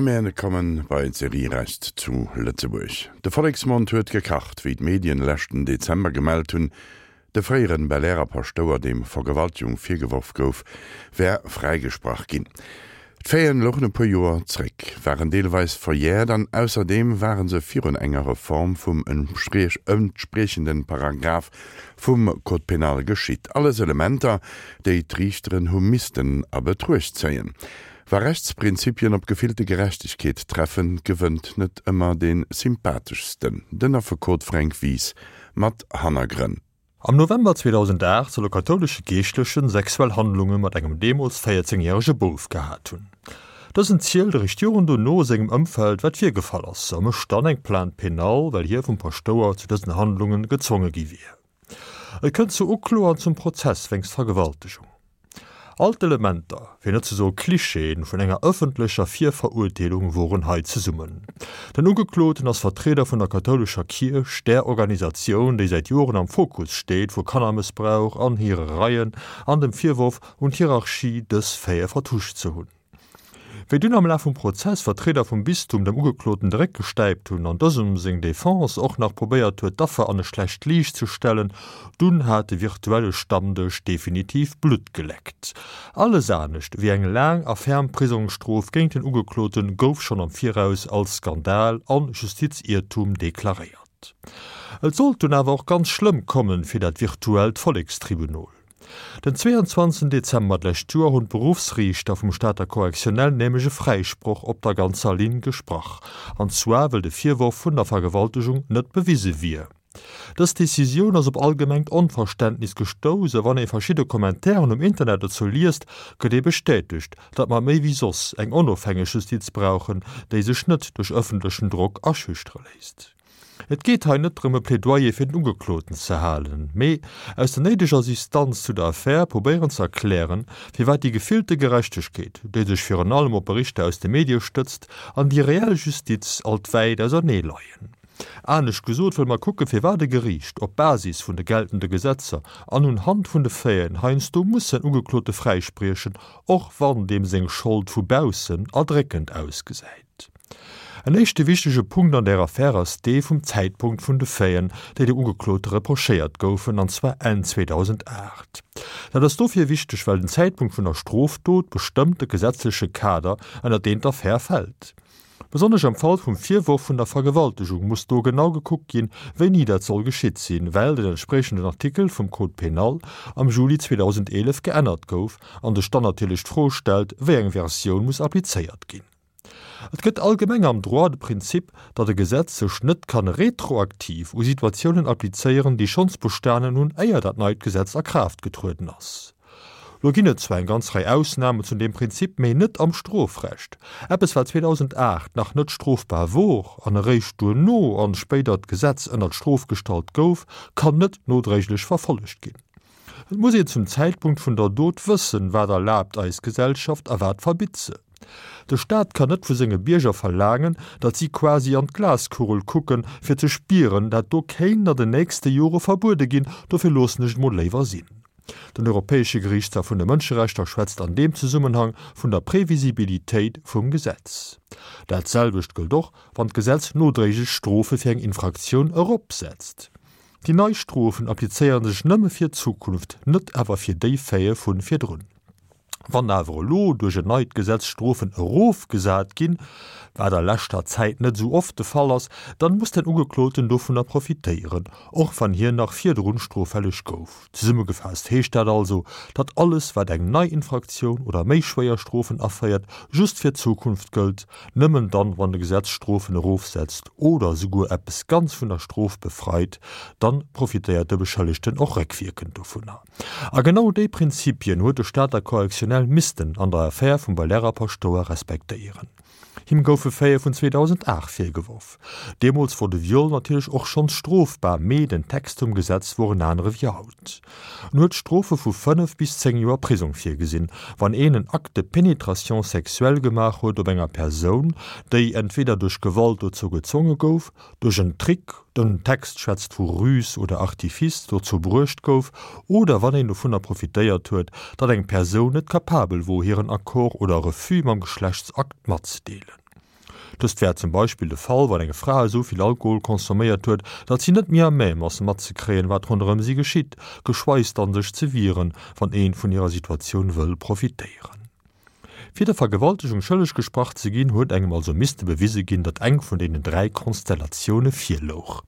A mär kommen bei d'Serie Recht zu Lëtzebuerg. De Volleksmond huet gekacht, wéi d'Medien leschten Dezember gemellt hunn, de fréieren Belair Paschtouer, deem Vergewaltegung virgeworf gouf, wär fräigesprach ginn. D'Faiten louchen e puer Joer zréck, waren deelweis verjährt an ausserdeem ware se virun enger Reform vum entspriechenden Paragraph vum Code pénal geschitt. Alles Elementer, déi d'Riichteren hu missten a Betruecht zéien. Wa Rechtsprinzipien op gefillte Gerechtegkeet treffen, gewënnt net ëmmer dee sympatheschsten, den Affekot Fränk Wies mat Hannergrënn. Am November 2008 soll e kathoulesche Geeschtlechen sexuell Handlunge mat engem deemools 14 järege Bouf gehat hunn. Dësen zielt eréischt Joren dono sengem Ëmfeld wat virgefall ass a mécht dann eng Plainte pénale, well hie vum Paschtouer zu dësen Handlunge gezwonge gi wier. Et kënnt zur Uklo an zum Prozess wéinst Vergewaltegung. All d'Elementer, fir net ze soe Klischeeën, vun enger ëffentlecher Virverurteelung woren hei zesummen. Den Ugekloten ass Vertrieder vun der kathoulescher Kierch, där Organisatioun, déi säit Joren am Fokus steet vu Kannermëssbrauch an hire Reien an dem Virworf un d'Hierarchie, dës Faite vertuscht ze hunn. Wéi dunn am Laf vum Prozess Vertrieder vum Bistum dem Ugekloten de Réck gestäipt hunn an dësem seng Defense och nach probéiert huet d'Affer an e schlecht Liicht ze stellen, dunn hat de virtuelle Stammdësch definitiv Blutt geleckt. Alles anescht wéi eng laang a ferm Prisongsstrof géint den Ugeklote gouf schonn am Viraus als Skandal an Justiziertum deklaréiert. Et sollt dunn awer och ganz schlëmm kommen fir dat virtuellt Vollekstribunol. Den 22 Dezember d'lescht Joer hunn d'Beruffsriichter vum Stater Correctionnel nämlech e Fräisproch op der ganzer Linn gesprach, an zwar wëll de Virworf vun der Vergewaltegung net bewise wier. Dës Decisioun ass op allgemengt Onverständnis gestouss a wann ee verschidde Commentairen um Internet dozou liest, gëtt ee bestätegt, datt mer méi wéi soss eng onofhängeg Justiz brauchen, déi sech net duerch ëffentlechen Drock aschüchtere léisst. Et geet hei net drëm e Plädoyer fir den Ugekloten ze halen, mee aus der néideger Distanz zu der Affär probéieren ze erklären, firwat déi gefillte Gerechtegkeet, déi sech virun allem op Berichter aus de Medie stëtzt, an déi reell Justiz alt wäit ausernee leien. Anescht gesot wëlle mer kucken, firwat e Geriicht op Basis vun de geltende Gesetzer an un Hand vun de Faiten heiansdo muss en Ugeklote fräispriechen, och wann deem seng Schold vu baussen erdréckend ausgesäit. En éischte wichtege Punkt an där Affär ass dee vum Zäitpunkt vun de Faiten, déi dem Ugeklote reprochéiert goufen, an zwar Enn 2008. Dat ass dofir wichteg, well den Zäitpunkt vun der Strofdot bestëmmt de gesetzleche Kader, ënner deen d'Affär fält. Besonnesch am Fall vum Virworf vun der Vergewaltegung muss do genau gekuckt ginn, wéini dat soll geschitt sinn, well den entspriechenden Artikel vum Code pénal am Juli 2011 geännert gouf an sech dann natierlech d'Fro stellt, wéi eng Versioun muss applizéiert ginn. Et gëtt allgemeng am Droit de Prinzip, datt e Gesetz sech net kann retroaktiv u Situatiounen applizéieren, déi schonns bestanen hunn, éier dat neit Gesetz a Kraaft getrueden ass. Lo ginn et zwar eng ganz Rei Ausnamen zu deem Prinzip, mee net am Strofrecht. Eppes, wat 2008 nach net strofbar wor an eréischt duerno an spéidert Gesetz ënnert Strof gestallt gouf, kann net nodréiglech verfollegt ginn. Et muss een zum Zäitpunkt vun der Dot wëssen, wat erlaabt eis Gesellschaft a wat verbitt se. De Staat kann net vu senge Bierger verlaangen, datt si quasi an d'Glaskugel kucken, fir ze spieren, dat do kéint an den nächste Jore verbuede ginn, dofir loossen ech et mol léiwer sinn. Den Europäesche Geriichtshaff vun de Mënscherechter schwätzt an deem Zesummenhang vun der Previsibilitéit vum Gesetz. Dat selwecht gëllt och, wann d'Gesetz nodréiglech Strofe fir eng Infraktioun eropsetzt. Déi nei Strofen applizéiere sech nëmme fir d'Zukunft, net awer fir déi Faite vu virdrun. Wann awer elo duerch en neit Gesetz Strofen erofgesat ginn, wat a leschter Zäit net esou oft de Fall ass, dann muss den Ugekloten dovunner profitéieren, och wann hien nach virdrun stroffälleg gouf. Zesummegefaasst heescht dat also, datt alles wat eng nei Infraktioun oder méi schwéier Strofen aféiert, just fir d'Zukunft gëllt, nëmmen dann wann de Gesetz Strofen erofsetzt oder esouguer eppes ganz vun der Strof befreit, dann profitéiert de Beschëllegten och réckwierkend dovunner. A genau déi Prinzipien huet de Stater Correctionnel missten an der Affär vum Belair Paschtouer respektéieren. Him goufe Faite vun 2008 virgeworf. Deemools wor de Viol natierlech och schonns strofbar, mee den Text vum Gesetz wor en anere wéi haut. En huet Strofe vu 5 bis 10 Joer Prisong virgesinn, wann een en Acte de pénétration sexuelle gemaach huet op enger Persoun, déi entweder duerch Gewalt dozou gezwonge gouf, duerch en Trick, den Text schwätzt vu Ruse oder Artifice, dozou bruecht gouf, oder wann een dovunner profitéiert huet, datt eng Persoun net capabel wor, hiren Accord oder Refus mam Geschlechtsakt matzedeelen. Dëst wär zum Beispill de Fall, wann eng Fra esou vill Alkohol consomméiert huet, datt si net méi à même ass matzekréien, wat ronderëm si geschitt, geschweis dann sech ze wieren, wann een vun hirer Situatioun wëll profitéieren. Fir der Vergewaltegung schëlleg gesprach ze ginn, huet engem also misste bewise ginn, datt eng vun deenen 3 Konstellatioune virlouch.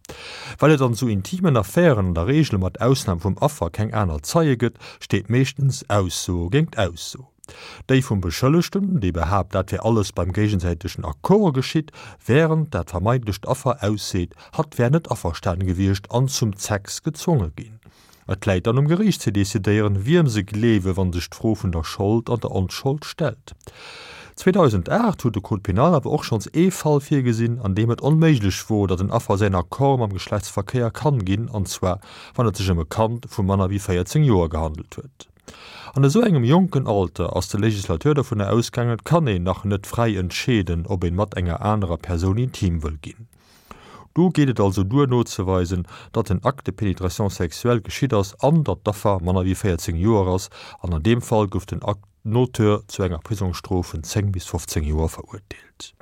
Well et an esou intimen Affären an der Reegel mat Ausnam vum Affer keng aner Zeie gëtt, steet meeschtens Ausso géingt Ausso. Déi vum Beschëllegten, dee behaapt, dat wär alles beim géigesäitegen Accord geschitt, wärend dat vermeintlecht Affer ausseet, hatt wär net averstanen gewiescht an zum Sex gezwonge ginn. Et läit dann um Geriicht ze decidéieren, wiem se gleewen, wann sech d'Fro vun der Schold an der Onschold stellt. 2008 huet de Code pénal awer och schonns ee Fall virgesinn, an deem et onméiglech wor, datt en Affer säin Accord mam Geschlechtsverkéier kann ginn, an zwar wann et sech ëm e Kand vu manner wéi 14 Joer gehandelt huet. An esou engem jonken Alter ass de Legislateur dovunner ausgaangen, et kann een nach net fräi entscheeden, ob een mat enger anerer Persoun intim wëll ginn. Do geet et also duer nozeweisen, datt en Acte de pénétration sexuelle geschitt ass an datt d'Affer manner wéi 14 Joer ass, an an deem Fall gouf den Auteur zu enger Prisongsstrof vun 10 bis 15 Joer verurteelt.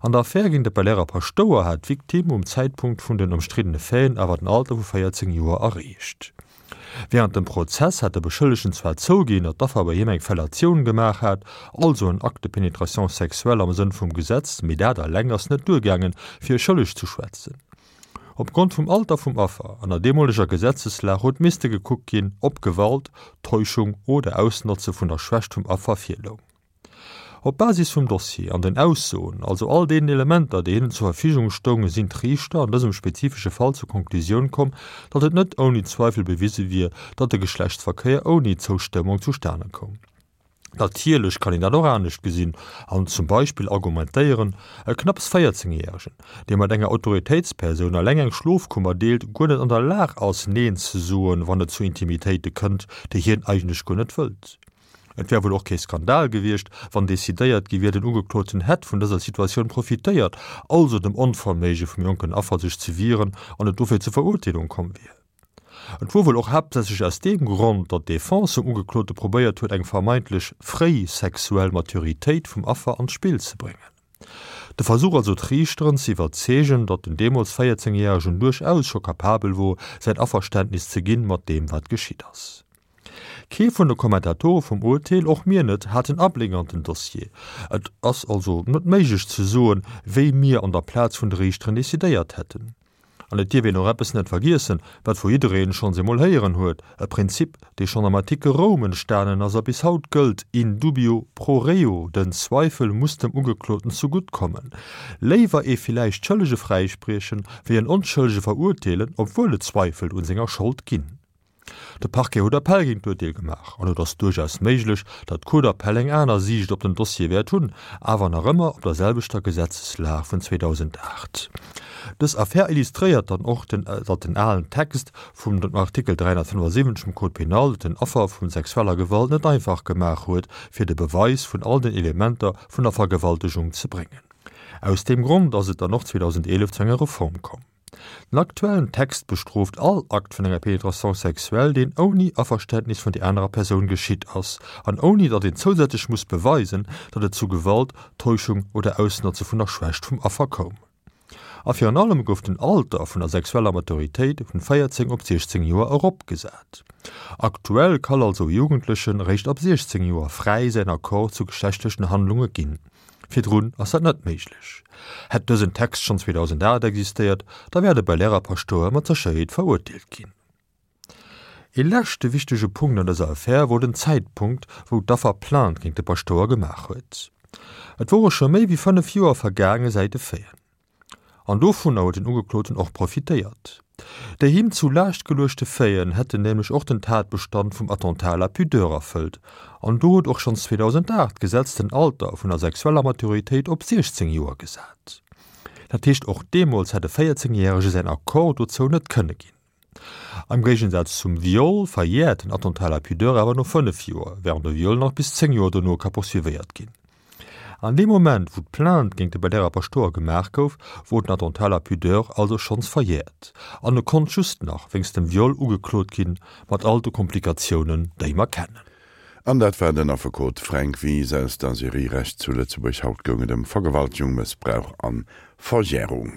An der Affär géint de Belair Paschtouer hat d'Victime um Zäitpunkt vun den ëmstriddene Faiten awer den Alter vu 14 Joer erreecht. Wärend dem Prozess hat de Beschëllegten zwar zouginn, datt d'Affer bei him eng Fellatioun gemaach hat, also en Acte de pénétration sexuelle am Sënn vum Gesetz, mee dat eleng ass net duergaangen, fir e schëlleg ze schwätzen. Opgrond vum Alter vum Affer an der deemoleger Gesetzeslag huet misste gekuckt ginn, ob Gewalt, Täuschung oder Ausnotze vun der Schwächt vum Affer virloung. Op Basis vum Dossier an den Aussoen, also all deenen Elementer, déi hinnen zur Verfügung stoungen, sinn d'Riichter an dësem spezifesche Fall zur Konklusioun komm, datt et net ouni Zweifel bewise wier, datt de Geschlechtsverkéier ouni Zoustëmmung zustane koum. Natierlech kann een dat och anescht gesinn an zum Beispill argumentéieren, e knapps 14 Järegen, dee mat enger Autoritéitspersoun eleng eng Schlofkummer deelt, guer net an der Lag ass, Neen ze soen, wann et zu Intimitéite kënnt, déi hien eigentlech guer net wëllt. Et wär wuel och kee Skandal gewiescht, wann decidéiert gi wier, den Ugekloten hätt vun dëser Situatioun profitéiert, also dem Onverméige vum jonken Affer sech ze wieren, an et dofir zur Verurteelung komm wier. Et wor wuel och haaptsächlech aus deem Grond, datt d'Defense vum Ugeklote probéiert huet, eng vermeintlech fréi sexuell Maturitéit vum Affer an d'Spill ze bréngen. De Versuch also d'Riichteren ze iwwerzeegen, datt den deemools 14 Järegen duerchaus scho kapabel wor, säin Averständnis ze ginn mat deem wat geschitt ass. Kee vun de Kommentatore vum Urteel, och mir net, hat en Abléck an den Dossier. Et ass also net méiglech ze soen, wéi mir an der Plaz vun de Riichteren decidéiert hätten. An et dierf een och eppes net vergiessen, wat vu jiddereen schonns emol héieren huet, e Prinzip, dee schonn am antike Roum entstanen ass a bis haut gëllt, in dubio pro reo, den Zweifel muss dem Ugekloten zegutt kommen. Léiwer ee villäicht Schëllege fräispriechen, wéi en Onschëllege verurteelen, obwuel et Zweifel un senger Schold ginn. De Parquet huet Appell géint d'Urteel gemaach an et ass duerchaus méiglech, datt d'Cour d'appel eng aner Siicht op den Dossier wäert hunn, awer nach ëmmer op der selwechter Gesetzeslag vun 2008. Dës Affär illustréiert dann och, datt den alen Text vum Artikel 375 vum Code pénal et den Affer vu sexueller Gewalt net einfach gemaach huet, fir de Beweis vun all den Elementer vun der Vergewaltegung ze bréngen. Aus deem Grond ass et dann och 2011 zu enger Reform komm. Den aktuellen Text bestrooft all Akt vun enger Pénétration sexuelle, deen ouni Averständnis vun der anerer Persoun geschitt ass an ouni datt een zousätzlech muss beweisen, datt et zu Gewalt, Täuschung oder Ausnotze vun der Schwächt vum Affer koum. A virun allem gouf den Alter vun der sexueller Maturitéit vun 14 op 16 Joer eropgesat. Aktuell kann also e Jugendlechen réischt ab 16 Joer fräi säin Accord zu geschlechtlechen Handlunge ginn. Virdrun ass dat net méiglech. Hätt dësen Text schonn 2008 existéiert, da wär de Belair Paschtouer mat Sécherheet verurteelt ginn. Ee leschte wichtege Punkt an dëser Affär wor den Zäitpunkt, wou d'Affer Plainte géint de Paschtouer gemaach huet. Et wore scho méi wéi 5 Joer vergaange säit de Faiten. An dovunner huet den Ugekloten och profitéiert. Déi him zu Laascht geluechte Faiten hätten nämlech och den Tatbestand vum Attentat à la pudeur erfëllt. An do huet och schonns 2008 d'Gesetz den Alter vun der sexueller Maturitéit op 16 Joer gesat. Dat heescht, och deemools hätt e 14 Järege säin Accord dozou net kënne ginn. Am Géigensaz zum Viol verjäert den Attentat à la pudeur awer no 5 Joer, wärend e Viol nach bis 10 Joer dono ka poursuivéiert ginn. An deem Moment, wou d'Plainte géint de Belair Paschtouer gemaach gouf, wor den Attentat à la pudeur also schonns verjäert an e konnt just nach wéinst dem Viol ugeklot ginn, mat all de Komplikatiounen, déi mer kennen. An dat war den Affekot Fränk Wies aus der Serie Recht zu Lëtzebuerg. Haut goung et ëm Vergewaltegung, Mëssbrauch an Verjärung.